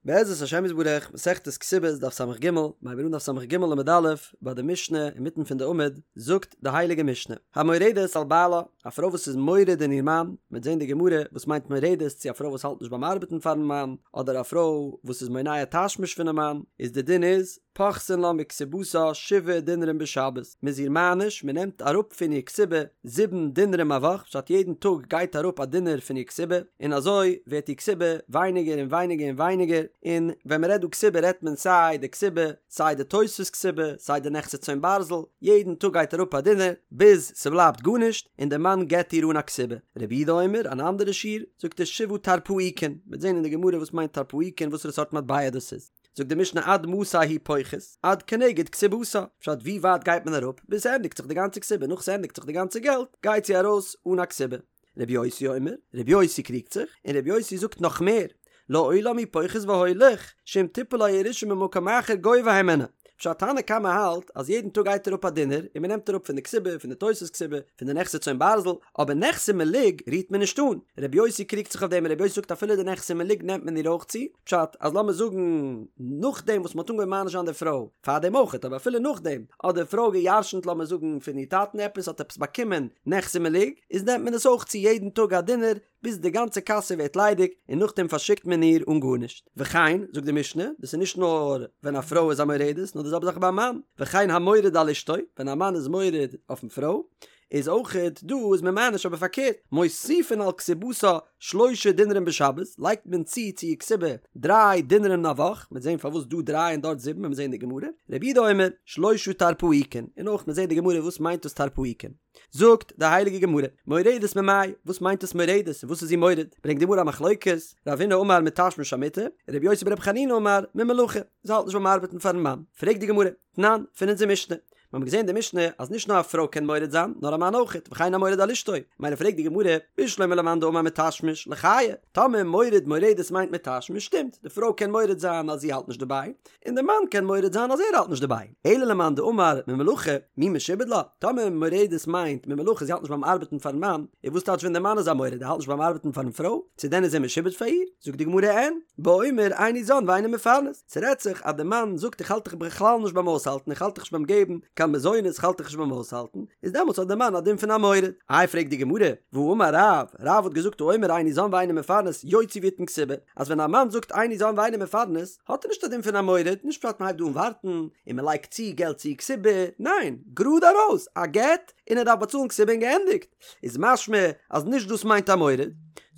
בעזרת השם יתברך, מסכת כתובות דף סג, מ'הייבט אן דף סג עמוד א', ביי די משנה אינמיטן פון די עמוד, זאגט די הייליגע משנה, המורדת על בעלה, א פרוי וואס איז מורד אין איר מאן, מ'וועט זען די גמרא וואס מיינט מורדת, צו א פרוי וואס האלט נישט ביים ארבעטן פארן מאן, אדער א פרוי וואס איז מונע תשמיש פונעם מאן, איז די דין איז, פוחתין לה מכתובתה שבעה דינרים בשבת, מ'איז איר מעניש, מ'נעמט אראפ פון איר כתובה זיבן דינרים א וואך, פשט יעדן טאג גייט אראפ א דינר פון איר כתובה, און אזוי ווערט איר כתובה ווייניגער און ווייניגער און ווייניגער, און ווען מ'רעדט דא כתובה רעדט מען סיי די כתובה, סיי די תוספת כתובה, סיי די נכסי צאן ברזל, יעדן טאג גייט אראפ א דינר, ביז ס'בלייבט גארנישט, און די מאן גט איר אן א כתובה. רבי יהודה אומר, אן אנדערע שיעור, זאגט ער שבעה טרפעיקין, מ'וועט זען אין די גמרא וואס מיינט טרפעיקין וואסערע סארט מטבע דאס איז. זאגט די משנה עד מתי הוא פוחת, עד כנגד כתובתה, פשט ווי ווייט גייט מען אראפ ביז ס'ענדיגט זיך די גאנצע כתובה, נאך ס'ענדיגט זיך די גאנצע געלט גייט זי ארויס אן א כתובה. רבי יוסי אומר, רבי יוסי קריגט זיך, און רבי יוסי זאגט נאך מער, לעולם הוא פוחת והולך, שאם תיפול לו ירושה ממקום אחר גובה הימנה. פשט תנא קמא האלט אז יעדן טאג גייט אראפ א דינר און מ'נעמט אראפ פון די כתובה, פון די תוספת כתובה, פון די נכסי צאן ברזל, אבער נכסי מלוג רירט מען נישט אן. רבי יוסי קריגט זיך אויף דעם און רבי יוסי זאגט אפילו די נכסי מלוג נעמט מען איר אויך צו, פשט אז לאמיר זאגן נאכדעם וואס מ'האט אנגעהויבן מעניש זיין די פרוי, פארדעם אויכעט אבער אפילו נאכדעם, האט די פרוי גע'ירש'נט לאמיר זאגן פון איר טאטן עפעס האט עפעס באקומען נכסי מלוג, איז נעמט מען עס אויך צו יעדן טאג א דינר ביז די גאנצע קאסע ווערט ליידיג און נאכדעם פארשיקט מען איר אן גארנישט. וכן, זאגט די משנה, דאס איז נישט נאר ווען א פרוי איז א מורדת נאר די זעלבע זאך ביי א מאן, וכן המורד על אשתו, ווען א מאן איז מורד אויפן פרוי, איז אויכעט דא איז מען מעניש אבער פארקערט, מוסיפין על כתובתה שלשה דינרים בשבת, לייגט מען צו צו איר כתובה דריי דינרים א וואך, מ'וועט זען פארוואס דא דריי און דארט זיבן ווען מיר זעען די גמרא, רבי יהודה אומר, שלשה טרפעיקין, און אויך מיר זעען די גמרא וואס מיינט דאס טרפעיקין. זאגט די הייליגע גמרא, מורדת ממאי, וואס מיינט דאס מורדת און וואס איז זי מורד, ברענגט די גמרא א מחלוקת, רב הונא אמר מתשמיש המיטה, רבי יוסי ברבי חנינא אמר ממלאכה, זי האלט נישט ביים ארבעטן פארן מאן, פרעגט די גמרא, תנן, פון אונזער משנה, מיר האבן געזען אין די משנה אז נישט נאר א פרוי קען מורד זיין, נאר א מאן אויכעט, וכן המורד על אשתו. מילא פרעגט די גמרא, בשלמא למאן דאמר מתשמיש, לחיי, טאמער מורד מורדת מיינט מתשמיש, שטימט, די פרוי קען מורד זיין אז זי האלט נישט דערביי, און די מאן קען מורד זיין אז ער האלט נישט דערביי. אלא למאן דאמר ממלאכה, מי משועבד לה, טאמער מורדת מיינט ממלאכה זי האלט נישט ביים ארבעטן פארן מאן, איז וואס טייטש ווען די מאן איז א מורד ער האלט נישט ביים ארבעטן פארן פרוי, צו דען איז ער משועבד פאר איר? זאגט די גמרא אין, באומר איני זן ואיני מפרנס. ס'רעדט זיך אז די מאן זאגט איך האלט דיך בכלל נישט ביים אויסהאלטן, איך האלט דיך נישט ביים געבן קיין מזונות, איך האלט דיך נישט ביים אויסהאלטן, איז דעמאלטס האט די מאן א דין פון א מורד. איי פרעגט די גמרא, והאמר רב, רב האט געזאגט האומר איני זן ואיני מפרנס יוציא ויתן כתובה, אז ווען א מאן זאגט איני זן ואיני מפרנס האט ער נישט א דין פון א מורד, נישט פשט מ'הייבט דא אן ווארטן און מ'לייגט צו געלט צו כתובה, ניין, גראד ארויס, א גט און ער דארף באצאלן כתובה און געענדיגט. איז משמע אז נישט דאס מיינט א מורד.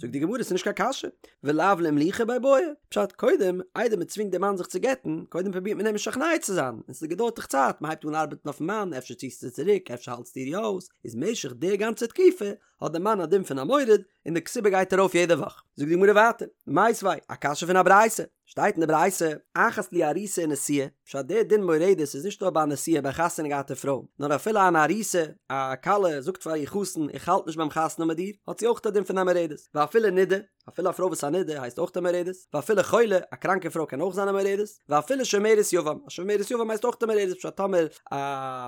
זאגט די גמרא ס'נישט קיין קשיא, ולאו לאימלוכי ביה בעי, פשט קודם איידער מ'צווינגט די מאן זיך צו גט'ן, קודם פרובירט מען אים משכנע צו זיין, און ס'געדויערט דאך צייט, מ'הייבט אן ארבעטן אויפן מאן, אפשר ציסטו צוריק, אפשר האלטסטו איר יא אויס, איז משך די גאנצע תקופה האט די מאן א דין פון א מורד, און די כתובה גייט ארויף יעדע וואך. זאגט די גמרא ווייטער, מיתיבי, א קשיא פון א ברייתא, שטייט אין די ברייתא, אחת לי ארוסה ונשואה, פשט דער דין מורדת איז נישט נאר ביי א נשואה ביי א חתונה געהאטע פרוי, נאר אפילו אן ארוסה, א כלה זאגט פאר איר חתן איך האלט נישט ביים חתונה מיט דיר, האט זי אויך א דין פון א מורדת, ואפילו נידה, אפילו א פרוי וואס איז א נידה הייסט אויך א מורדת, ואפילו חולה, א קראנקע פרוי קען אויך זיין א מורדת, ואפילו שומרת יבם, א שומרת יבם הייסט אויך א מורדת, פשט טאמער א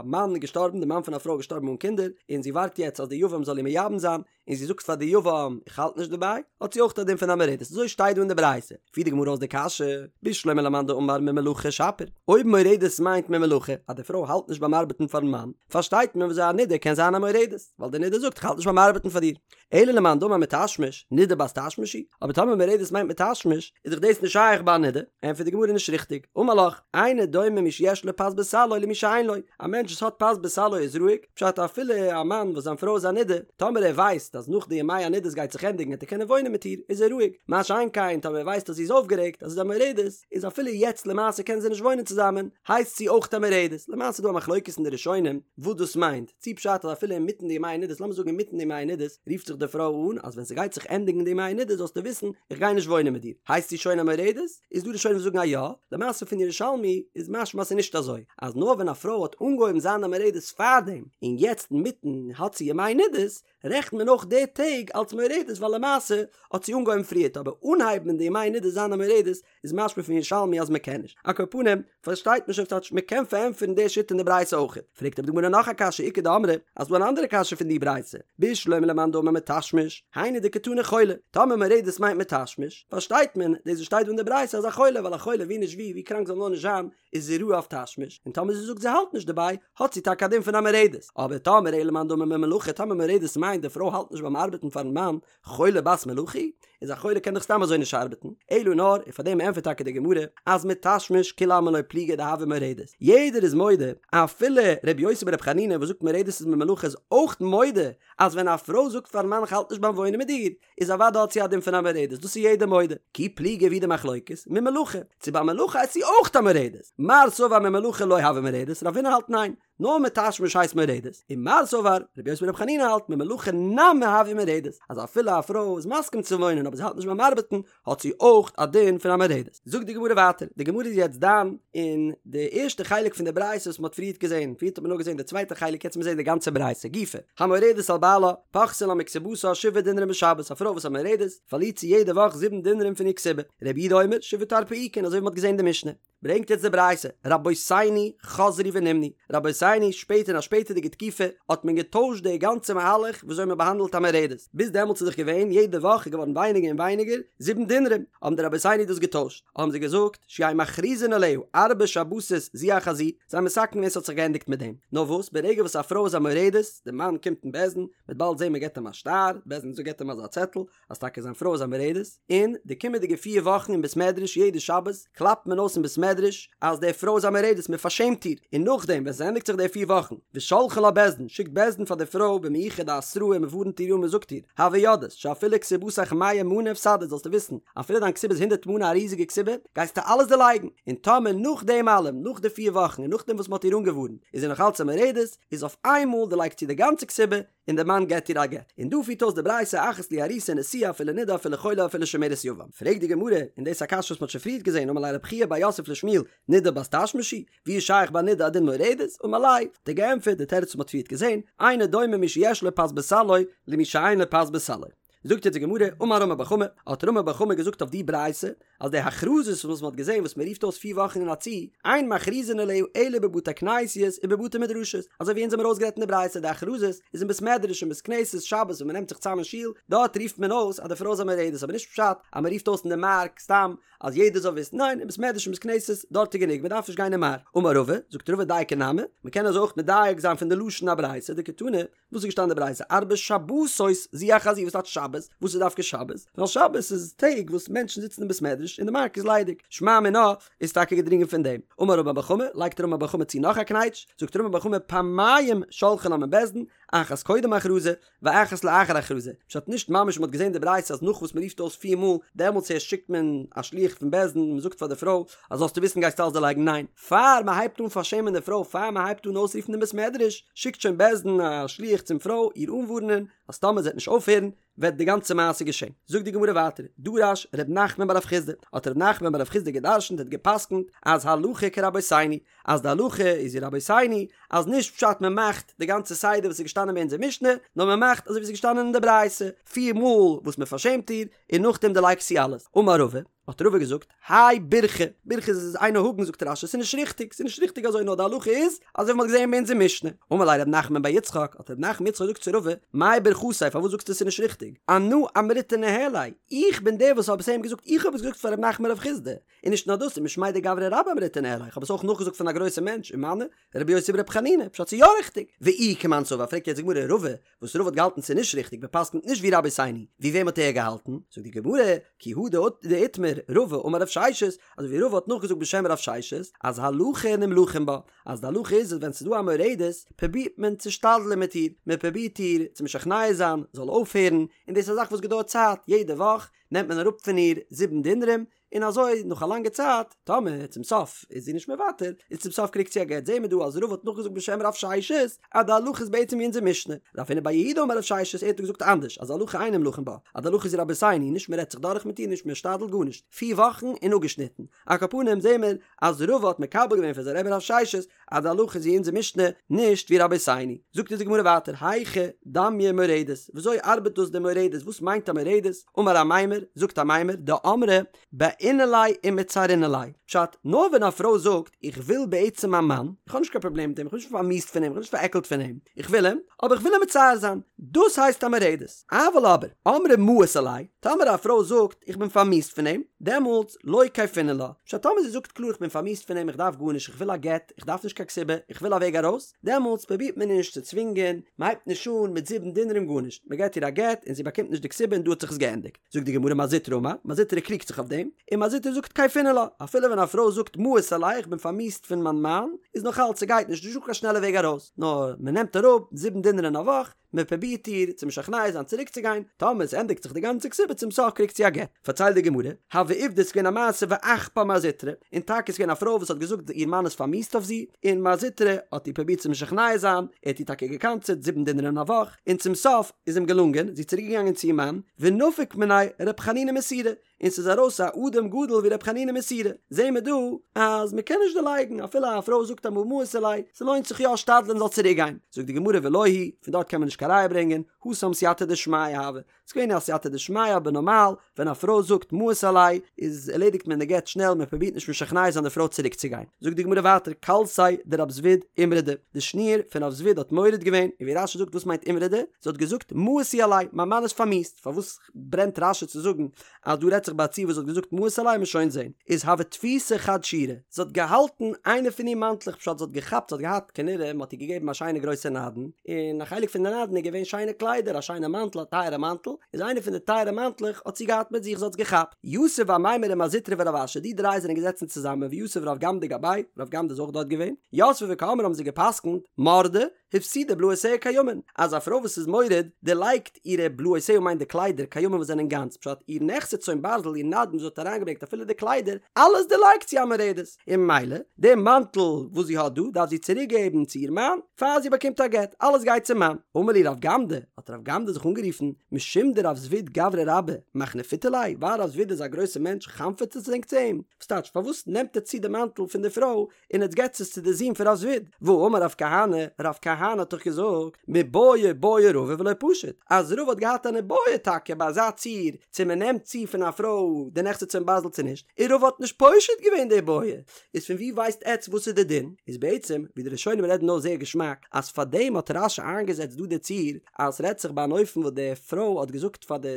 מאן איז געשטארבן, די מאן פון א פרוי איז געשטארבן אן קינדער, און זי ווארט יעצט אז די יבם זאל איר מייבם זיין, און זי זאגט פאר די יבם איך האלט נישט דערביי, האט זי אויך א דין פון א מורדת, אזוי שטייט דא אין די ברייתא, פירט די גמרא אויס די קשיא, בשלמא למאן דאמר ממלאכה שפיר, אויב מורדת מיינט ממלאכה, אז די פרוי האלט נישט ביים ארבעטן פארן מאן, פארשטייט מען וויאזוי א נידה קען זיין א מורדת, ווייל די נידה זאגט איך האלט נישט ביים ארבעטן פאר דיר. אלא למאן דאמר מתשמיש, נידה בת תשמיש היא, אבער טאמער מורדת מיינט מתשמיש, איז דאך דאס נישט שייך ביי א נידה, ענטפערט די גמרא נישט ריכטיג, אמר לך, אינו דומה מי שיש לו פת בסלו למי שאין לו, א מענטש וואס האט פת בסלו איז רואיג, פשט אפילו א מאן וואס זיין פרוי איז א נידה, טאמער ער ווייסט אז נאך די ימי הנידות גייט זיך ענדיגן וועט ער קענען וואוינען מיט איר, איז ער רואיג, מה שאין כן טאמער ער ווייסט אז זי איז אויפגערעגט אז זי איז א מורדת, איז אפילו יעצט למעשה קענען זיי נישט וואוינען צוזאמען, הייסט זי אויך א מורדת, למעשה איז דא א מחלוקת אין די ראשונים וואס דאס מיינט, צי פשט אז אפילו אינמיטן די ימי הנידות, לאמיר זאגן אינמיטן די ימי הנידות, רופט זיך די פרוי אן אז ווען ס'גייט זיך ענדיגן די ימי הנידות זאלסטו וויסן איך גיי נישט וואוינען מיט דיר, הייסט זי שוין א מורדת? איז דא ראשונים וואס זאגן אז יא, למעשה פון ירושלמי איז משמע אז ס'איז נישט אזוי, אז נאר ווען א פרוי האט אנגעהויבן זיין א מורדת פארדעם, און יעצט אינמיטן האט זי ימי נידות, רעכנט מען אויך די טעג אלס מורדת ווייל למעשה האט זי אנגעהויבן פריערט אבער אנהייבן אין די ימי נידה זיין א מורדת איז משמע פון ירושלמי אז מ'קען נישט. על כל פנים, פארשטייט מען שוין ס'טייטש מ'קען פארענטפערן די שיטה אין די ברייתא אויכעט. פרעגט אבער די גמרא נאך א קשיא איכא דאמרי, אז ס'דא אן אנדערע קשיא פון די ברייתא, בשלמא למאן דאמר מתשמיש, היינו דקתני חולה, טאמער מורדת מיינט מתשמיש, פארשטייט מען דאס וואס שטייט דא אין די ברייתא אז א חולה, ווייל א חולה ווי נישט ווי, ווי קראנק זאל נאר נישט זיין, איז זי ראוי אויף תשמיש, און טאמער זי זאגט זי האלט נישט דערביי, האט זי טאקע א דין פון א מורדת. אבער טאמער אלא למאן דאמר ממלאכה, טאמער מורדת מיינט די פרוי האלט נישט ביים ארבעטן פארן מאן, חולה בת מלאכה היא? איז א חולה קען דאך סתם אזוי נישט ארבעטן, אלא נאר, און פאר דעם ענטפערט טאקע די גמרא, אז מתשמיש כולי עלמא לא פליגי דהויא מורדת, יעדער איז מודה, אפילו ר' יוסי בר' חנינא וואס זאגט מורדת איז ממלאכה איז אויך מודה אז ווען א פרוי זאגט פארן מאן איך האלט נישט ביים וואוינען מיט דיר, איז אוודאי האט זי א דין פון א מורדת, דאס איז יעדער מודה, כי פליגי ווי די מחלוקת, ממלאכה, צו ביי מלאכה איז זי אויך א מורדת, מר סבר ממלאכה לא הויא מורדת, רבינא האלט ניין, נאר מתשמיש הייסט מורדת, און מר סבר, רבי יוסי ברבי חנינא האלט ממלאכה נמי הויא מורדת, אז אפילו א פרוי איז מסכים צו וואוינען אבער זי האלט נישט ביים ארבעטן, האט זי אויך א דין פון א מורדת. זאגט די גמרא ווייטער, די גמרא איז יעצט דן אין די ערשטע חלק פון די ברייתא וואס מען האט פריערט געזען, פריערט האט מען נאר געזען די צווייטע חלק, יעצט מיר זען די גאנצע ברייתא גופא, המורדת על בעלה, פוחתין לה מכתובתה שבעה דינרים בשבת, א פרוי וואס איז א מורדת, פארלירט זי יעדע וואך זיבן דינרים פון איר כתובה, רבי יהודה אומר, שבעה טרפעיקין, אזוי ווי מען האט געזען אין די משנה. ברענגט יעצט די ברייתא, רבותינו חזרו ונמנו, רבותינו שפעטער אין א שפעטערדיגע תקופה האט מען געטוישט די גאנצע מהלך וויאזוי מען באהאנדלט א מורדת, ביז דעמאלטס איז דאך געווען יעדע וואך איז געווארן ווייניגער און ווייניגער, זיבן דינרים, האבן די רבותינו דאס געטוישט, האבן זיי געזאגט, שיהו מכריזין עליה ארבע שבתות זו אחר זו, זיי האבן מתקן געווען ס'האט זיך געענדיגט מיט דעם, נאר וואס ברגע וואס א פרוי איז א מורדת, די מאן קומט אין בית דין, מ'וועט באלד זען מען געבט אים א שטר, בית דין געבט אים אזא צעטל, אז טאקע זיין פרוי איז א מורדת, און די קומענדיגע פיר וואכן אין בית מדרש יעדע שבת קלאפט מען אויס אין בית מדרש אז די פרוי איז א מורדת מען פארשעמט איר, און נאכדעם ווען ס'ענדיגט זיך די פיר וואכן ושולחין לה בית דין שיקט בית דין פאר די פרוי במיוחד א התראה און מ'ווארנט איר אן מ'זאגט איר הוי יודעת שאפילו כתובתיך מאה מנה הפסדת זאלסטו וויסן אפילו דיין כתובה איז הונדערט מנה א ריזיגע כתובה גייסטו אלעס דערלייגן, און טאמער נאך דעם אלעם נאך די פיר וואכן און נאכדעם וואס מ'האט איר אנגעווארנט איז זי נאך אלץ א מורדת איז אויף איינמאל דערלייגט זי די גאנצע כתובה און דער מאן געט איר א גט. און דא פירט אויס די ברייתא אחת לי ארוסה ונשואה אפילו נידה אפילו חולה אפילו שומרת יבם. פרעגט די גמרא, און דאס איז א קשיא וואס מען האט שוין פריערט געזען, אמר ליה רב חייא בר יוסף לשמואל, נידה בת תשמיש היא, ווי איז שייך ביי נידה א דין מורדת? אמר ליה, האט ער געענטפערט די תירוץ וואס מען האט פריערט געזען, אינו דומה מי שיש לו פת בסלו למי שאין לו פת בסלו. זאגט יעצט די גמרא, אמר רמי בר חמא, האט רמי בר חמא געזאגט אויף די ברייתא, אז די הכרזות וואס מען האט געזען וואס מען רופט אויס פיר וואכן אין א צי, אין מכריזין עליה אלא בבתי כנסיות ובבתי מדרשות, אזוי ווי אונז האבן ארויסגערעדט אין די ברייתא די הכרזות איז אין בית מדרש און בית כנסת שבת ווען מען נעמט זיך צאם אין שול, דארט רופט מען אויס אז די פרוי איז א מורדת, אבער נישט פשט אז מען רופט אויס אין די מארק סתם אז יעדער זאל וויסן, ניין אין בית מדרש און בית כנסת דארט איז גענוג מען דארף נישט גיין אין מארק. אמר רבא, זאגט רבא דייקא נמי, מען קען אזוי אויך מדייק זיין פון די לשון הברייתא דקתני, וואס איז געשטאנען אין די ברייתא ארבע שבתות זו אחר זו וואס טייטש שבת? וואס איז דווקא שבת? ווייל שבת איז טעג וואס מענטשן זיצן אין בית מדרש און די מארק איז ליידיג, שמע מינה איז טאקע געדרינגען פון דעם. אמר רמי בר חמא, לייגט רמי בר חמא צו נאך א קנייטש, זאגט רמי בר חמא פעמיים שולחין לה מבית דין, אחת קודם הכרזה, ואחת לאחר הכרזה, פשט נישט ממש מ'האט געזען די ברייתא אז נאך וואס מ'רופט אויס פיר מאל דעמאלטס הערשט שיקט מען א שליח פון בית דין און מ'זאגט פאר די פרוי אז זאלסטו וויסן גייסטו אלעס דערלייגן ניין פאר מען הייבט אן פארשעמען די פרוי, פאר מען הייבט אן אויסרופן אין בית מדרש, שיקט שוין בית דין א שליח צום פרוי איר אנווארענען אז טאמער זי וועט נישט אויפהערן וועט די גאנצע מעשה געשען. זאגט די גמרא ווייטער, דרש ר' נחמן בר רב חסדא, האט ר' נחמן בר רב חסדא גע'דרש'נט האט גע'פסק'נט אז הלכה כרבותינו, אז די הלכה איז ווי רבותינו, אז נישט פשט מען מאכט די גאנצע סדר וואס איז געשטאנען ביי אונזער משנה, נאר מען מאכט אזוי ווי עס איז געשטאנען אין די ברייתא, פיר מאל וואס מען פארשעמט איר, און נאכדעם דערלייגט זי אלעס. אמר רבא, האט רבא געזאגט, האי בירכא, בירכא איז אינו הגון זאגט רש"י, ס'איז נישט ריכטיג, ס'איז נישט ריכטיג אזוי נאר די הלכה איז אזוי ווי מ'האט געזען אין אונזער משנה. אמר ליה רב נחמן בר יצחק, האט רב נחמן יצחק געזאגט צו רבא, מאי ברכתיה פארוואס זאגסטו ס'איז נישט ריכטיג? אנא אמריתה ניהליה, איך בין דער וואס האב עס איהם געזאגט, איך האב עס געזאגט פאר רב נחמן בר רב חסדא, און נישט נאר דאס, ומשמיה דגברא רבה אמריתה ניהליה, איך האב עס אויך נאכגעזאגט פון א גרויסע מענטש, ומנו, רבי יוסי ברבי חנינא, פשט ס'איז יא ריכטיג. ואי כמאן סבר, פרעגט יעצט די גמרא, רבא, וואס רבא האט געהאלטן ס'איז נישט ריכטיג, מען פסק'נט נישט ווי רבותינו, ווי וועם האט ער געהאלטן? זאגט די גמרא, כי הא דאיתמר רבא אמר רב ששת, אזוי ווי רבא האט נאכגעזאגט בשם רב ששת, אז הלכה נמלכין בה, אז די הלכה איז אז ווען ס'איז דא א מורדת, פרובירט מען צו שתדל'ן מיט איר, מען פרובירט איר צו משכנע זיין, זאל אויפהערן, און דאס איז א זאך וואס געדויערט צייט, יעדע וואך נעמט מען אראפ פון איר זיבן דינרים, און אזוי נאך א לאנגע צייט, טאמער צום סוף איז זי נישט מוותר, איז צום סוף קריגט זי א גט, זעהן מיר דא אז רבא האט נאכגעזאגט בשם רב ששת, אז די הלכה איז בעצם ווי אונזער משנה. רב הונא בר יהודה אמר רב ששת, ער האט געזאגט אנדערש, אז הלכה אין נמלכין בה, אז די הלכה איז ווי רבותינו, נישט מען רעדט זיך דורך מיט איר, נישט מען שתדל'ט גארנישט, פיר וואכן און אפגעשניטן. על כל פנים זעהן מיר אז רבא האט מקבל געווען פון זיין רבי רב ששת אז די הלכה איז ווי אונזער משנה, נישט ווי רבותינו. זאגט אונז די גמרא ווייטער, היכי דמיא מורדת, וויאזוי ארבעט דאס די מורדת, וואס מיינט א מורדת? אמר אמימר, זאגט אמימר, דאמרה בעינא ליה ומצערינא ליה, פשט, נאר ווען א פרוי זאגט, איך וויל בעצם מיין מאן, איך האב נישט קיין פראבלעם מיט אים, איך בין נישט פארמיאוסט פון אים, איך בין נישט פארעקלט פון אים, איך וויל אים, אבער איך וויל אים מצער זיין, דאס הייסט א מורדת. אבל אבער, אמרה מאיס עלי, טאמער א פרוי זאגט, איך בין פארמיאוסט פון אים, דעמאלטס, לא כייפינן לה, פשט, טאמער זי זאגט קלאר איך בין פארמיאוסט פון אים, איך דארף גארנישט, איך וויל א גט, איך דארף נישט קיין כתובה, איך וויל א וועג ארויס, דעמאלטס פרובירט מען נישט צו צווינגען, מען הייבט נישט אן מיט זיבן דינרים גארנישט, מען געבט איר א גט און זי באקומט נישט די כתובה און דא האט זיך עס געענדיגט. זאגט די גמרא מר זוטרא אמר, מר זוטרא קריגט זיך אויף דעם, און מר זוטרא זאגט כייפינן לה, אפילו ווען א פרוי זאגט מאיס עלי איך בין פארמיאוסט פון מיין מאן, איז נאך אלץ ס'גייט נישט, נישטא קיין שנעלע וועג ארויס, נאר מען נעמט אראפ זיבן דינר אין א וואך, מען פרובירט איר צו משכנע זיין צוריק צו גיין, טאמער עס ענדיגט זיך די גאנצע כתובה צום סוף קריגט זי א גט. פארציילט די גמרא, הוה עובדא ס'איז געווען א מעשה ואחפה מר זוטרא, און טאקע איז געווען א פרוי וואס האט געזאגט איר מאן איז פארמיאוסט אויף זי, און מר זוטרא האט איר פרובירט צו משכנע זיין, ער האט איר טאקע געקנס'עט זיבן דינר אין א וואך, און צום סוף איז אים געלונגען, זי איז צוריק געגאנגען צו איר מאן, ונפק מיניה ר' חנינא מסורא, און ס'איז ארויס א אדם גדול ווי ר' חנינא מסורא, זעהן מיר דא אז מ'קען נישט דערלייגן אפילו א פרוי זאגט אמאל מאיס עלי, ס'לוינט זיך יא שתדל'ן זאל צוריק גיין, זאגט די גמרא ולא היא, פון דארט קען מען נישט קיין ראיה ברענגען, התם סייעתא דשמיא הוה, ס'איז געווען א סייעתא דשמיא אבער נארמאל ווען א פרוי זאגט מאיס עלי איז ערלעדיגט מען די גט שנעל מען פרובירט נישט משכנע זיין די פרוי צוריק צו גיין. זאגט די גמרא ווייטער כלתיה דרב זביד אימרדה, די שניר פון רב זביד האט מורד געווען, און ווי רש"י זאגט וואס מיינט אימרדה? זי האט געזאגט מאיס הוא עלי, מיין מאן איז פארמיאוסט, פארוואס ברענט רש"י צו זאגן אז דא רעדט זיך ביי א ציור וואס האט געזאגט מאיס עלי מ'עט שוין זעהן איז הוה תפיסא חד שירא זי האט געהאלטן איינע פון איר מאנטלעך פשט זי האט געכאפט זי האט געהאט כנראה מ'האט איר געגעבן א שיינע גרויסע נדן און א חלק פון די נדן איז געווען שיינע קליידער א שיינע מאנטל א טייערע מאנטל איז איינע פון די טייערע מאנטלעך האט זי געהאט מיט זיך זי האט עס געכאפט יתיב אמימר ומר זוטרא ורב אשי די דריי זענען געזעצן צוזאמען ויתיב רב גמדא גבייהו רב גמדא איז אויך דארט געווען יתבי וקאמרי האבן זיי געפסקנט מרדה הפסידה בלאותיה קיימין, אז א פרוי וואס איז מורד דערלייגט אירע בלאותיה מיינט די קליידער קיימין וואס זענען גאנץ, פשט איר נכסי צאן ברזל איר נדן וואס זי האט אריינגעברענגט אפילו די קליידער אלעס דערלייגט זי א מורדת, און ממילא די מאנטל וואס זי האט דא דארף זי צוריק געבן צו איר מאן פאר זי באקומט א גט, אלעס גייט צום מאן. אמר להו רב גמדא, האט רב גמדא זיך אנגערופן, משום דרב זביד גברא רבה, מחנפיתו ליה, ווייל רב זביד איז א גרויסע מענטש חנפ'עט עטס ענק צו אים? וואס טייטש פארוואס נעמט עטס צו די מאנטל פון די פרוי און עטס געטס עס צו די זון פון רב זביד, והאמר רב כהנא, רב כהנא האט דאך געזאגט, מיבעיא בעי רבא ולא פשיט, אז רבא האט געהאט אן איבעיא טאקע ביי אזא ציור, צו מען נעמט צו פון א פרוי די נכסי צאן ברזל צו נישט, און רבא האט נישט פושט געווען די בעיא, איז פון ווי ווייסט עטס וואס איז די דין? איז בעצם, ווי די ראשונים רעדן אויס זייער געשמאק, אז פארדעם האט רש"י איינגעזעצט דא די ציור, אז ס'רעדט זיך ביי אן אופן וואס די פרוי האט געזאגט פאר די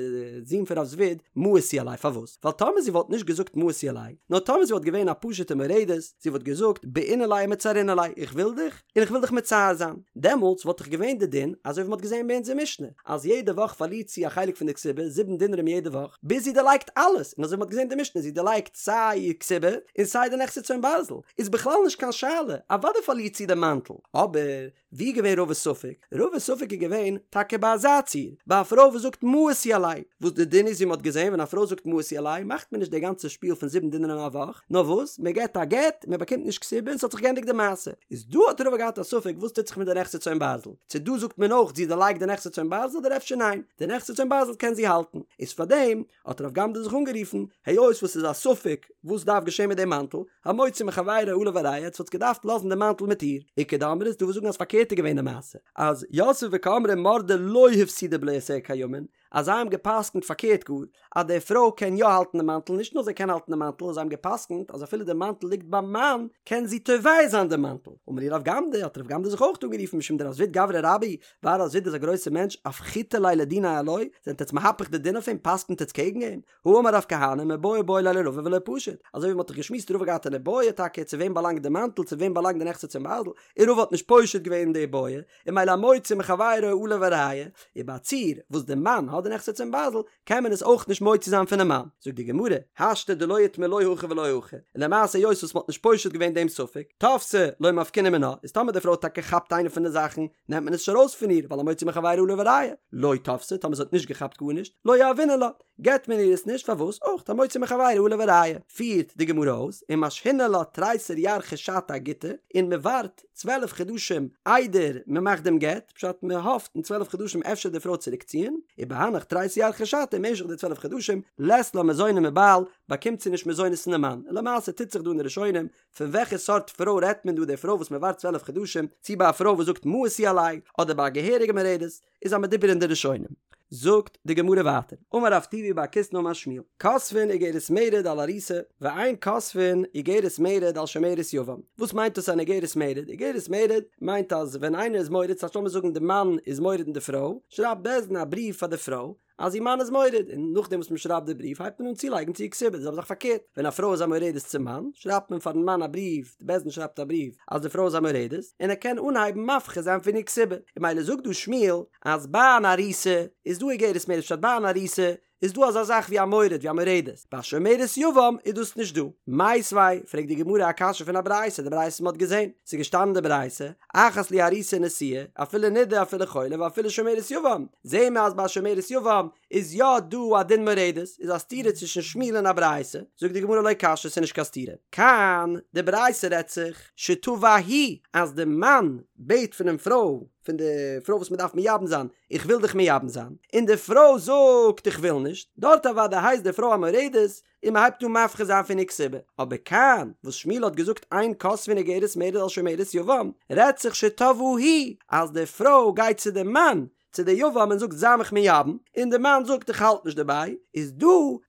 זון פון רב זביד, מאיס הוא עלי, פארוואס? ווייל טאמער זי וואלט נישט געזאגט מאיס הוא עלי, נאר טאמער זי וואלט געווען א פשוטע מורדת, זי וואלט געזאגט בעינא ליה ומצערינא ליה, איך וויל דיך, און איך וויל דיך מצער זיין, דעמאלטס וואלט דאך געווען די דין, אזוי ווי מ'האט געזען ביי אונזער משנה, אז יעדע וואך פארלירט זי א חלק פון די כתובה, זיבן דינרים יעדע וואך, ביז זי דערלייגט אלעס, און אזוי ווי מ'האט געזען די משנה, זי דערלייגט סיי איר כתובה, און סיי די נכסי צאן ברזל, איז בכלל נישט קיין שאלה, אוודאי פארלירט זי די מאנטל, אבער. ווי איז געווען רבא'ס ספק? רבא'ס ספק איז געווען טאקע ביי אזא ציור, ביי א פרוי וואס זאגט מאיס הוא עלי, וואס די דין איז ווי מ'האט געזען ווען א פרוי זאגט מאיס הוא עלי מאכט מען נישט די גאנצע שפיל פון זיבן דינרים א וואך, נאר וואס מען געט א גט, מען באקומט נישט כתובה און ס'האט זיך געענדיגט די מעשה. איז דא האט רבא געהאט א ספק וואס טוט זיך מיט די נכסי צאן ברזל, צו דא זאגט מען אויך זי דערלייגט די נכסי צאן ברזל אדער אפשר ניין, די נכסי צאן ברזל קען זי האלטן, איז פארדעם האט רב גמדא זיך אנגערופן, היות וואס ס'איז א ספק וואס דארף געשען מיט דעם מאנטל, המוציא מחבירו עליו הראיה, עטס וואלטס געדארפט לאזן דעם מאנטל מיט איר. איכא דאמרי ס'דא וואס זאגן אז פארקערט איז געווען די מעשה, אז יתבי וקאמרי מרדה לא הפסידה בלאותיה קיימין, אז זיי האבן גע'פסק'נט פארקערט גאר, אז די פרוי קען יא האלטן די מאנטל, נישט נאר זי קען האלטן די מאנטל, זיי האבן גע'פסק'נט אז אפילו די מאנטל ליגט ביים מאן, קען זי תובע זיין די מאנטל. אמר להו רב גמדא, האט רב גמדא זיך אויך אנגערופן משום דרב זביד גברא רבה, ווייל רב זביד איז א גרויסער מענטש, אפכיתו ליה לדיניה עילויה, זענט עטס מהפך די דין אויף אים, פסק'נט עטס קעגן אים? האמר רב כהנא מיבעיא בעי ליה לרבא ולא פשיט, אזוי ווי מ'האט דאך געשמועסט רבא געהאט אן איבעיא טאקע צו וועם באלאנגט די מאנטל צו וועם באלאנגט די נכסי צאן ברזל, און רבא האט נישט פושט געווען די איבעיא, און ממילא המוציא מחבירו עליו הראיה, און ביי א ציור וואס די מאן האט די נכסי צאן ברזל קען מען עס אויך נישט מוציא זיין פונעם מאן, זאגט די גמרא, השתא דלא איתמר לא הכי ולא הכי, און למעשה היות וואס מ'האט נישט פושט געווען דעם ספק, תפסה לא מפקינן מינה, איז טאמער די פרוי האט טאקע געכאפט איינע פון די זאכן, נעמט מען עס נישט ארויס פון איר, ווייל המוציא מחבירו עליו הראיה, לא תפסה, טאמער זי האט נישט געכאפט גארנישט, לא יהבינן לה. געבט מען איר עס נישט, פארוואס? אויך המוציא מחבירו עליו הראיה. פירט די גמרא אויס, ומשהינן לה תריסר ירחי שתא אגיטא, און מען ווארט 12 חדשים איידער מען מאכט דעם גט, פשט מען האפט אין 12 חדשים אפשר די פרוי צוריקציען, ובהנך תריסר ירחי שתא אין משך די 12 חדשים לית לה מזוני מבעל, באקומט זי נישט מזונות פון די מאן, און למעשה טוט זיך דא אין די ראשונים פון וועלכע סארט פרוי רעדט מען דא די פרוי וואס מען ווארט 12 חדשים, צי ביי א פרוי וואס זאגט מאסו עלי, אדער ביי א געהעריגע מורדת, איז א מדובר אין די ראשונים. זאגט די גמרא ווייטער, אמר רב טובי בר קיסנא אמר שמואל, כותבין איגרת מרד על ארוסה, ואין כותבין איגרת מרד על שומרת יבם. וואס מיינט דאס אן איגרת מרד? איגרת מרד מיינט אז ווען איינער איז מורד, ס'הייסט לאמיר זאגן די מאן איז מורד אין די פרוי, שרייבט בית דין א בריוו פאר די פרוי, אז איר מאן איז מורד, און נאכדעם וואס מען שרייבט די בריוו הייבט מען אן צולייגן צו איר כתובה, די זעלבע זאך פארקערט, ווען א פרוי איז א מורדת צום מאן, שרייבט מען פארן מאן א בריוו, די בית דין שרייבט א בריוו אז די פרוי איז א מורדת, און ער קען אנהייבן מפחית זיין פון איר כתובה, און ממילא זאגט דא שמואל אז ביי אן ארוסה איז דא איגרת מרד, פשט ביי אן ארוסה איז דא אזא זאך ווי א מורד ווי א מורדת, ביי שומרת יבם איז דאס נישט דא. מיתיבי, פרעגט די גמרא א קשיא פון א ברייתא, די ברייתא וואס מען האט געזען, ס'איז געשטאנען אין די ברייתא, אחת לי ארוסה ונשואה, אפילו נידה אפילו חולה ואפילו שומרת יבם, זעהן מיר אז ביי שומרת יבם איז יא דא א דין מורדת, איז א סתירה צווישן שמואל און א ברייתא, זאגט די גמרא לא קשיא ס'איז נישט קיין סתירה, כאן, די ברייתא רעדט זיך, שתבע הוא, אז די מאן בעט פונעם פרוי, פון די פרוי וואס מ'דארף מייבם זיין, איך וויל דיך מייבם זיין, און די פרוי זאגט איך וויל נישט, דארט אוודאי הייסט די פרוי א מורדת, און מען הייבט אן מפחית זיין פון איר כתובה, אבער כאן וואס שמואל האט געזאגט אין כותבין איגרת מרד על שומרת יבם, רעדט זיך שתבעה היא, אז די פרוי גייט צו די מאן, צו די יבם און זאגט זיי מיך מייבם, און די מאן זאגט איך האלט נישט דערביי, איז דא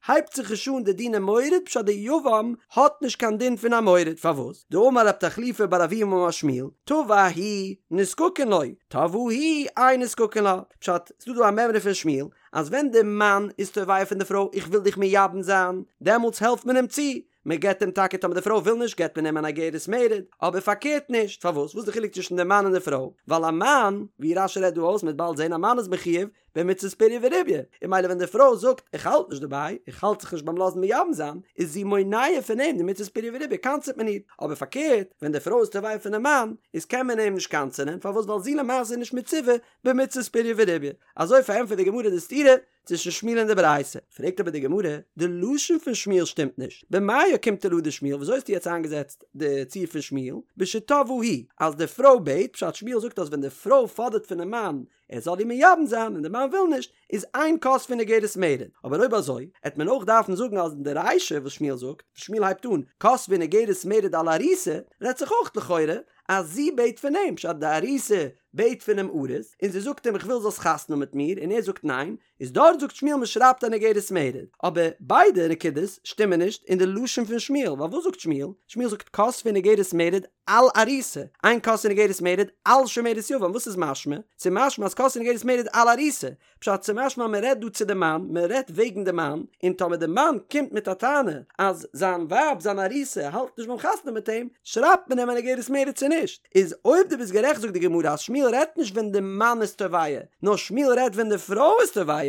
הייבט זיך נישט אן די דיני מורד פשט די יבם האט נישט קיין דין פון א מורד, פארוואס? דאמר רב תחליפא בר אבוה אמר שמואל, תבע הוא נזקקין לו, תבעה היא אין נזקקין לה, פשט, ס'דא דא א מימרא פון שמואל, אז ווען די מאן איז תובע פון די פרוי איך וויל דיך מייבם זיין, דעמאלטס העלפט מען אים צו, מען געבט אים טאקע טאמער די פרוי וויל נישט געבט מען אים אן אגרת מרד, אבער פארקערט נישט, פארוואס? וואס איז די חילוק צווישן די מאן און די פרוי? ווייל א מאן, ווי רש"י רעדט דא אויס, מען וועט באלד זען א מאן איז מחויב במצות פריה ורביה, און ממילא ווען די פרוי זאגט איך האלט נישט דערביי, איך האלט זיך נישט ביים לאזן מייבם זיין, איז זי מונע פון אים די מצות פריה ורביה, קנס'עט מען איר, אבער פארקערט ווען די פרוי איז תובע פונעם מאן, איז קען מען אים נישט קנס'ענען, פארוואס? ווייל זי למעשה איז נישט מצווה במצות פריה ורביה. אזוי פארענטפערט די גמרא די סתירה צווישן שמואל און די ברייתא. פרעגט אבער די גמרא, די לשון פון שמואל שטימט נישט, במאי אוקימתא לה דשמואל, וויאזוי האסטו יעצט איינגעזעצט די ציור פון שמואל, בשתבעה היא, אז די פרוי בעט, פשט שמואל זאגט אז ווען די פרוי פאדערט פונעם מאן ער זאל איר מייבם זיין און די מאן וויל נישט, איז אין כותבין איגרת מרד. אבער אויב אזוי, העט מען אויך דארפן זאגן אז אין די רישא וואס שמואל זאגט, שמואל הייבט אן, כותבין איגרת מרד על ארוסה, רעדט זיך אויך לכאורה אז זי בעט פון אים, פשט די ארוסה בעט פונעם ארוס, און זי זאגט אים איך וויל זאלסט חתונה האבן מיט מיר, און ער זאגט ניין, איז דארט זאגט שמואל מען שרייבט אן איגרת מרד, אבער ביידע נקודות שטימען נישט אין די לשון פון שמואל, ווייל וואס זאגט שמואל? שמואל זאגט כותבין איגרת מרד על ארוסה, אין כותבין איגרת מרד על שומרת יבם, וואס איז משמע? ס'איז משמע אז כותבין איגרת מרד על ארוסה, פשט ס'משמע אז מ'רעדט דא צו די מאן, מ'רעדט וועגן די מאן, און טאמער די מאן קומט מיט א טענה אז זיין ווייב זיין ארוסה האלט נישט ביים חתונה מיט אים, שרייבט מען אים אן איגרת מרד צו נישט? איז אויב דו ביסט גערעכט זאגט די גמרא אז שמואל רעדט נישט ווען די מאן איז תובע, נאר שמואל רעדט ווען די פרוי איז תובע,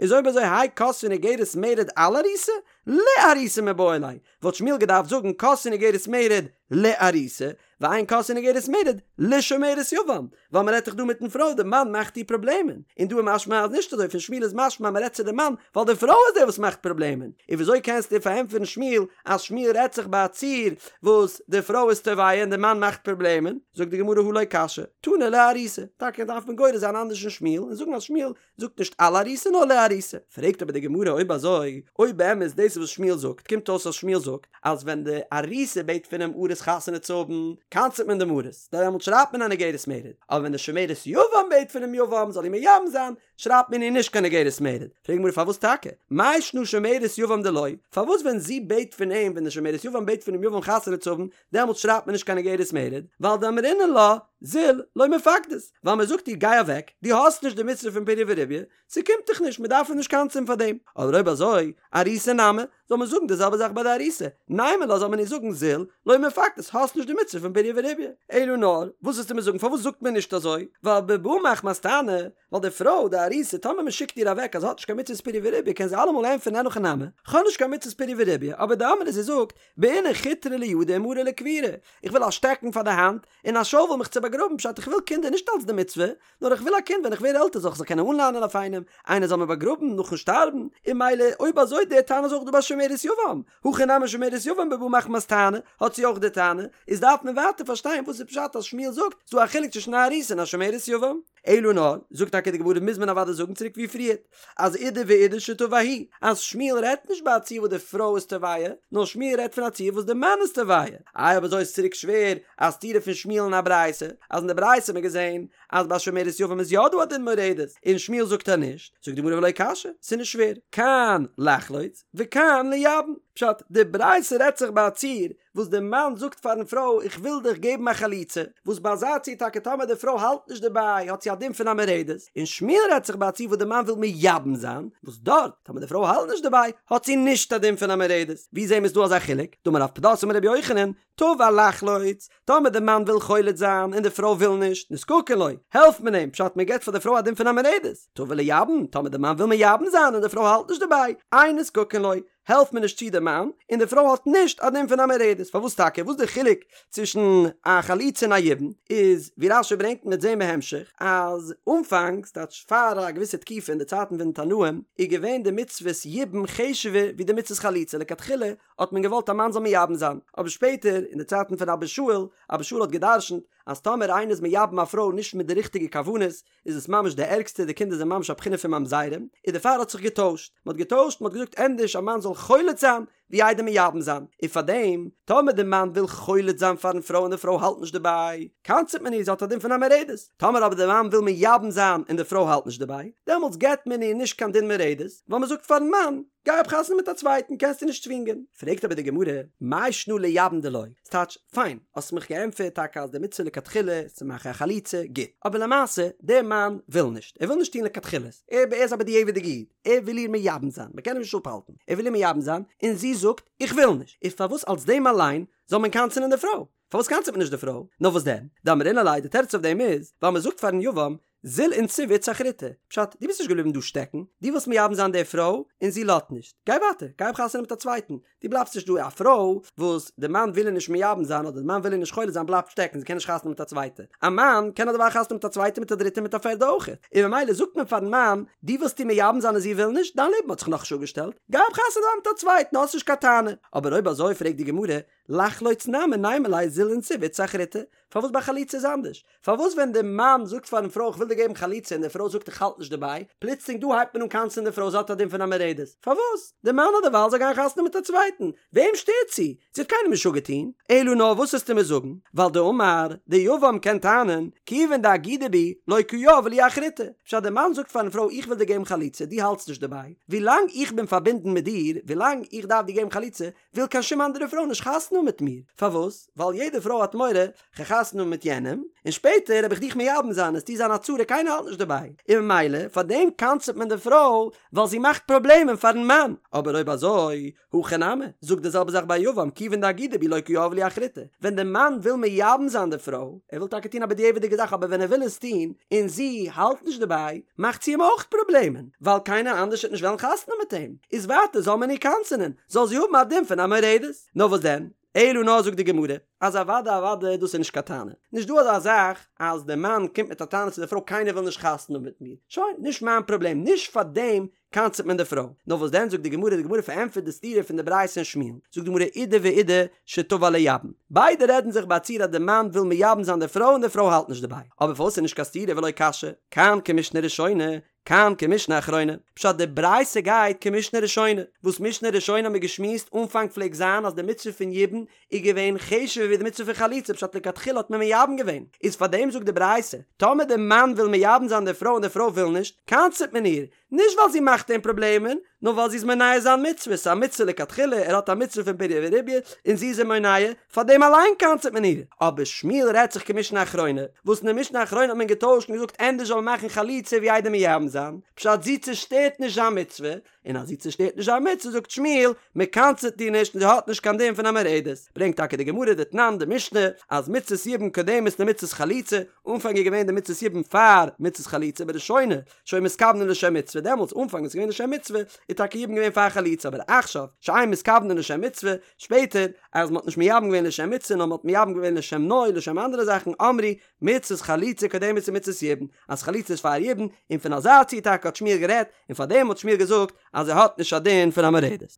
איז אויב אזוי האי כותבין איגרת מרד על ארוסה, לארוסה מיבעי ליה, וואלט שמואל געדארפט זאגן כותבין איגרת מרד לארוסה, ואין כותבין איגרת מרד לשומרת יבם, ווייל מען רעדט דאך דא מיטן פרוי, די מאן מאכט איר פראבלעמען, און דא איז משמע אז נישט אזוי, פון שמואל איז משמע מען רעדט צו די מאן, ווייל די פרוי איז די וואס מאכט פראבלעמען, און וויאזוי קענסטו פארענטפערן שמואל אז שמואל רעדט זיך ביי א ציור וואס די פרוי איז תובע און די מאן מאכט פראבלעמען, זאגט די גמרא הא לא קשיא, תנא לארוסה, טאקע דארף מען גורס זיין אנדערש אין שמואל און זאגן אז שמואל זאגט נישט על ארוסה נאר לארוסה. פרעגט אבער די גמרא אויב אזוי, אויב באמת דאס איז וואס שמואל זאגט, קומט אויס אז שמואל זאגט אז ווען די ארוסה בעט פונעם ארוס חתונה צו האבן, קנס'ט מען דעם ארוס, דעמאלט שרייבט מען אן איגרת מרד, אבער ווען די שומרת יבם בעט פונעם יבם זאל איר מייבם זיין, שרייבט מען איר נישט קיין איגרת מרד. פרעגט די גמרא פארוואס טאקע? מאי שנא שומרת יבם דלא, פארוואס ווען זי בעט פון אים, ווען די שומרת יבם בעט פונעם יבם חתונה צו האבן, דעמאלט שרייבט מען נישט קיין איגרת מרד, ווייל דאמרינן לה, זיל, לא מפקדת, ווייל מען זאגט איר גיי אוועק, דו האסט נישט די מצוה פון פריה ורביה, ס'קומט דיך נישט, מען דארף איר נישט קנס'ען פאר דעם. אדער אויב אזוי, ארוסה נמי, זאל מען זאגן די זעלבע זאך ביי די ארוסה, נימא לה זאל מען איר זאגן זיל, לא מפקדת, האסט נישט די מצוה פון פריה ורביה. אלא נאר, וואס וועסטו מיר זאגן פארוואס זאגט מען נישט אזוי, ווייל בבא מחמת טענה, ווייל די פרוי, די ארוסה, טאמער מען שיקט איר אוועק אז זי האט נישט קיין מצוות פריה ורביה קען זי אלעמאל ענטפערן אין הכי נמי, כ'האב נישט קיין מצוות פריה ורביה, אבער דאמרה זי זאגט, בעינא חוטרא לידא ומרא לקבורה, איך וויל א שטעקן פאר די האנט, און א שאוול מיך צו באגראבן. באגראבן, פשט איך וויל קינדער נישט אלץ די מצוה, נאר איך וויל א קינד ווען איך ווער עלטער זאל איך זיך קענען אנלאנען אויף איינעם, איינער זאל מיר באגראבן נאכן שטארבן, און ממילא אויב אזוי די טענה איז אויך דא ביי שומרת יבם, הכא נמי שומרת יבם בבא מחמת טענה, האט זי אויך די טענה, איז דארף מען ווייטער פארשטיין וואס איז פשט אז שמואל זאגט ס'דא א חילוק צווישן א ארוסה און א שומרת יבם. אלא נאר, זאגט טאקע די גמרא מוז מען אוודאי זאגן צוריק ווי פריערט, אז אידי ואידי שתבע הוא, אז שמואל רעדט נישט ביי א ציור וואס די פרוי איז תובע, נאר שמואל רעדט פון א ציור וואס די מאן איז תובע. איי אויב אזוי איז צוריק שווער א סתירה פון שמואל און א ברייתא, אז אין די ברייתא האט מען געזען אז ביי שומרת יבם איז יא דא א דין מורדת, און שמואל זאגט אז נישט, זאגט די גמרא ולא קשיא, ס'איז נישט שווער, כאן לחלוץ וכאן לייבם, פשט, די ברייתא רעדט זיך ביי א ציור וואס די מאן זאגט פארן פרוי איך וויל דיך געבן א חליצה, וואס ביי אזא ציור טאקע טאמער די פרוי האלט נישט דערביי האט זי א דין פון א מורדת, און שמואל רעדט זיך ביי א ציור וואס די מאן וויל מייבם זיין, וואס דארט טאמער די פרוי האלט נישט דערביי האט זי נישט א דין פון א מורדת, ווי זעהן מיר ס'דא אזא חילוק? דאמר רב פדת אמר רבי יוחנן, תבע לחלוץ, טאמער די מאן וויל חולץ זיין און די פרוי וויל נישט, נזקקין לו, העלפט מען אים, פשט מען געבט פאר די פרוי א דין פון א מורדת, תבע לייבם, טאמער די מאן וויל מייבם זיין און די פרוי האלט נישט דערביי, אין נזקקין לו, העלפט מען נישט צו די מאן, און די פרוי האט נישט א דין פון א מורדת, פארוואס טאקע? וואס די חילוק צווישן א חליצה און א יבום? איז ווי רש"י ברענגט מ'וועט זעהן בהמשך, אז אנפאנג, ס'טייטש פאר א געוויסע תקופה אין די צייטן פון די תנאים, איז געווען די מצוות יבום חשוב'ער ווי די מצוות חליצה, לכתחילה האט מען געוואלט א מאן זאל מייבם זיין, אבער שפעטער אין די צייטן פון אבא שאול, אבא שאול האט גע'דרש'נט אז טאמער איינער איז מייבם א פרוי נישט מיט די ריכטיגע כוונות, איז עס ממש די ערגסטע, די קינדער זענען ממש א בחינה פון ממזרים, און דערפאר האט זיך געטוישט, מען האט געטוישט, מען האט געזאגט ענדערש א מאן זאל חולץ זיין, ווי איידער מייבם זיין, און פארדעם, טאמער די מאן וויל חולץ זיין פארן פרוי און די פרוי האלט נישט דערביי, קנס'ט מען איר, זי האט א דין פון א מורדת, טאמער אבער די מאן וויל מייבם זיין און די פרוי האלט נישט דערביי, דעמאלטס געבט מען איר נישט קיין דין מורדת, ווייל מען זאגט פארן מאן, גיי האב חתונה מיט א צווייטן, קענסט איר נישט צווינגען. פרעגט אבער די גמרא, מאי שנא לייבם דלא? ס'טייטש, פיין, האסט מיך געענטפערט טאקע אז די מצוה לכתחילה איז צו מאכן א חליצה, גוט. אבער למעשה, דער מאן וויל נישט. ער וויל נישט טון לכתחילה. ער איז א בדיעבד'יגע איד. ער וויל איר מייבם זיין. מ'קען אים נישט אפהאלטן. ער וויל איר מייבם זיין, און זי זאגט, איך וויל נישט. איז פארוואס אלס דעם אליין זאל מען קנס'ענען די פרוי? פארוואס קנס'עט מען נישט די פרוי? נאר וואס דען? דאמרינן ליה, די תירוץ אויף דעם איז, ווייל מ'זאגט פארן יבם, זיל ונסיב איתתא אחריתא, פשט, דו ביסט נישט געבליבן דא שטעקן, דו ווילסט מייבם זיין די פרוי, און זי לאזט נישט, גיי ווייטער, גיי האב חתונה מיט א צווייטן, דו בלייבסט נישט דא, א פרוי וואס די מאן וויל איר נישט מייבם זיין אדער די מאן וויל איר נישט חולץ זיין בלייבט שטעקן, זי קען נישט חתונה מיט א צווייטע, א מאן קען אדערווייל חתונה מיט א צווייטע מיט א דריטע מיט א פערדע אויך, און ממילא זאגט מען פארן מאן, דו ווילסט איר מייבם זיין און זי וויל נישט, דיין לעבן האט זיך נאכנישט אפגעשטעלט, גיי האב חתונה מיט א צווייטן, האסט נישט קיין טענה, אבער אויב אזוי פרעגט די גמרא, לחלוץ נמי נימא ליה זיל ונסיב איתתא אחריתא, פארוואס ביי חליצה איז אנדערש? פארוואס ווען די מאן זאגט פארן פרוי איך וויל דיר געבן חליצה און די פרוי זאגט איך האלט נישט דערביי, פלוצלינג דא הייבט מען אן קנס'ען די פרוי זי האט א דין פון א מורדת? פארוואס? די מאן האט דערווייל זאל גיין חתונה מיט א צווייטן, וועם שטערט זי? זי האט קיינעם נישט אפגעטון. אלא נאר וואס וועסטו מיר זאגן? ווייל דאמר, די יבם קען טענה'ן, כיוון דאגידא בי, לא קא יהבי לי אחריתא. פשט די מאן זאגט פארן פרוי איך וויל דיר געבן חליצה, דו האלטסט נישט דערביי, ווילאנג איך בין פארבינדן מיט דיר, ווילאנג איך דארף דיר געבן חליצה, וויל קיין שום אנדערע פרוי נישט חתונה האבן מיט מיר, פארוואס? ווייל יעדע פרוי האט מורא, כ'גיי חתונה האבן מיט יענעם, און שפעטער וועל איך דיך מייבם זיין, עסטו זיין א צרה קיינער האלט נישט דערביי, און ממילא פאר דעם קנס'עט מען די פרוי, ווייל זי מאכט פראבלעמען פארן מאן, אבער אויב אזוי, הכא נמי, זאג די זעלבע זאך ביי יבם, כיוון דאגידא בי לא קא יהבי לי אחריתא, ווען די מאן וויל מייבם זיין די פרוי, ער וויל טאקע טון א בדיעבד'יגע זאך אבער ווען ער וויל עס טון, און זי האלט נישט דערביי, מאכט זי אים אויך פראבלעמען, ווייל קיינער אנדערש וועט נישט וועלן חתונה מיט אים, איז ווייטער זאל מען איר קנס'ענען, זאל זי האבן א דין פון א מורדת. נאר וואס דען? אלא נאר זאגט די גמרא, אז אוודאי אוודאי דאס איז נישט קיין טענה, נישט דא אזא זאך אז די מאן קומט מיט א טענה צו די פרוי קיינער וויל נישט חתונה האבן מיט מיר, שוין, נישט מיין פראבלעם, נישט פאר דעם קנס'עט מען די פרוי. נאר וואס דען זאגט די גמרא, די גמרא פארענטפערט די סתירה פון די ברייתא און שמואל, זאגט די גמרא אידי ואידי שתבע לייבם, ביידע רעדן זיך ביי א ציור אז די מאן וויל מייבם זיין די פרוי און די פרוי האלט נישט דערביי, אבער פארוואס איז נישט קיין סתירה ולא קשיא, כאן כמשנה ראשונה, כאן כמשנה אחרונה, פשט די ברייתא גייט כמשנה ראשונה, וואס משנה ראשונה האט מען געשמועסט אנפאנג פלעגט זיין אז די מצוה פון יבום איז געווען חשוב'ער ווי די מצוה פון חליצה פשט לכתחילה האט מען מייבם געווען, איז פארדעם זאגט די ברייתא, טאמער די מאן וויל מייבם זיין די פרוי און די פרוי וויל נישט, קנס'עט מען איר, נישט ווייל זי מאכט אים פראבלעמען, נאר ווייל זי איז מונע זיין מצוה, ס'איז א מצוה לכתחילה, ער האט א מצוה פון פריה ורביה, און זי איז אים מונע, פאר דעם אליין קנס'עט מען איר. אבער שמואל רעדט זיך כמשנה אחרונה, וואס אין די משנה אחרונה האט מען געטוישט און געזאגט ענדערש זאל מען מאכן חליצה ווי איידער מייבם זיין, פשט זי צושטערט נישט זיין מצוה, און אז זי צושטערט נישט זיין מצוה זאגט שמואל, מען קנס'עט איר נישט און זי האט נישט קיין דין פון א מורדת. ברענגט טאקע די גמרא דתנן די משנה אז מצות יבום קודמת למצות חליצה, אנפאנג איז געווען די מצות יבום פאר מצות חליצה בראשונה שהיו מתכוונין לשם מצוה דעמאלטס אנפאנג איז געווען לשם מצוה איז טאקע יבום געווען פאר חליצה אבער עכשיו שאין מתכוונין לשם מצוה שפעטער אז מען האט נישט מייבם געווען לשם מצוה נאר מען האט מייבם געווען לשם נוי לשם אנדערע זאכן אמרו מצות חליצה קודמת למצות יבום אז חליצה איז פאר יבום און פון אזא ציור טאקע האט שמואל גערעדט און פארדעם האט שמואל געזאגט אז ער האט נישט א דין פון א מורדת.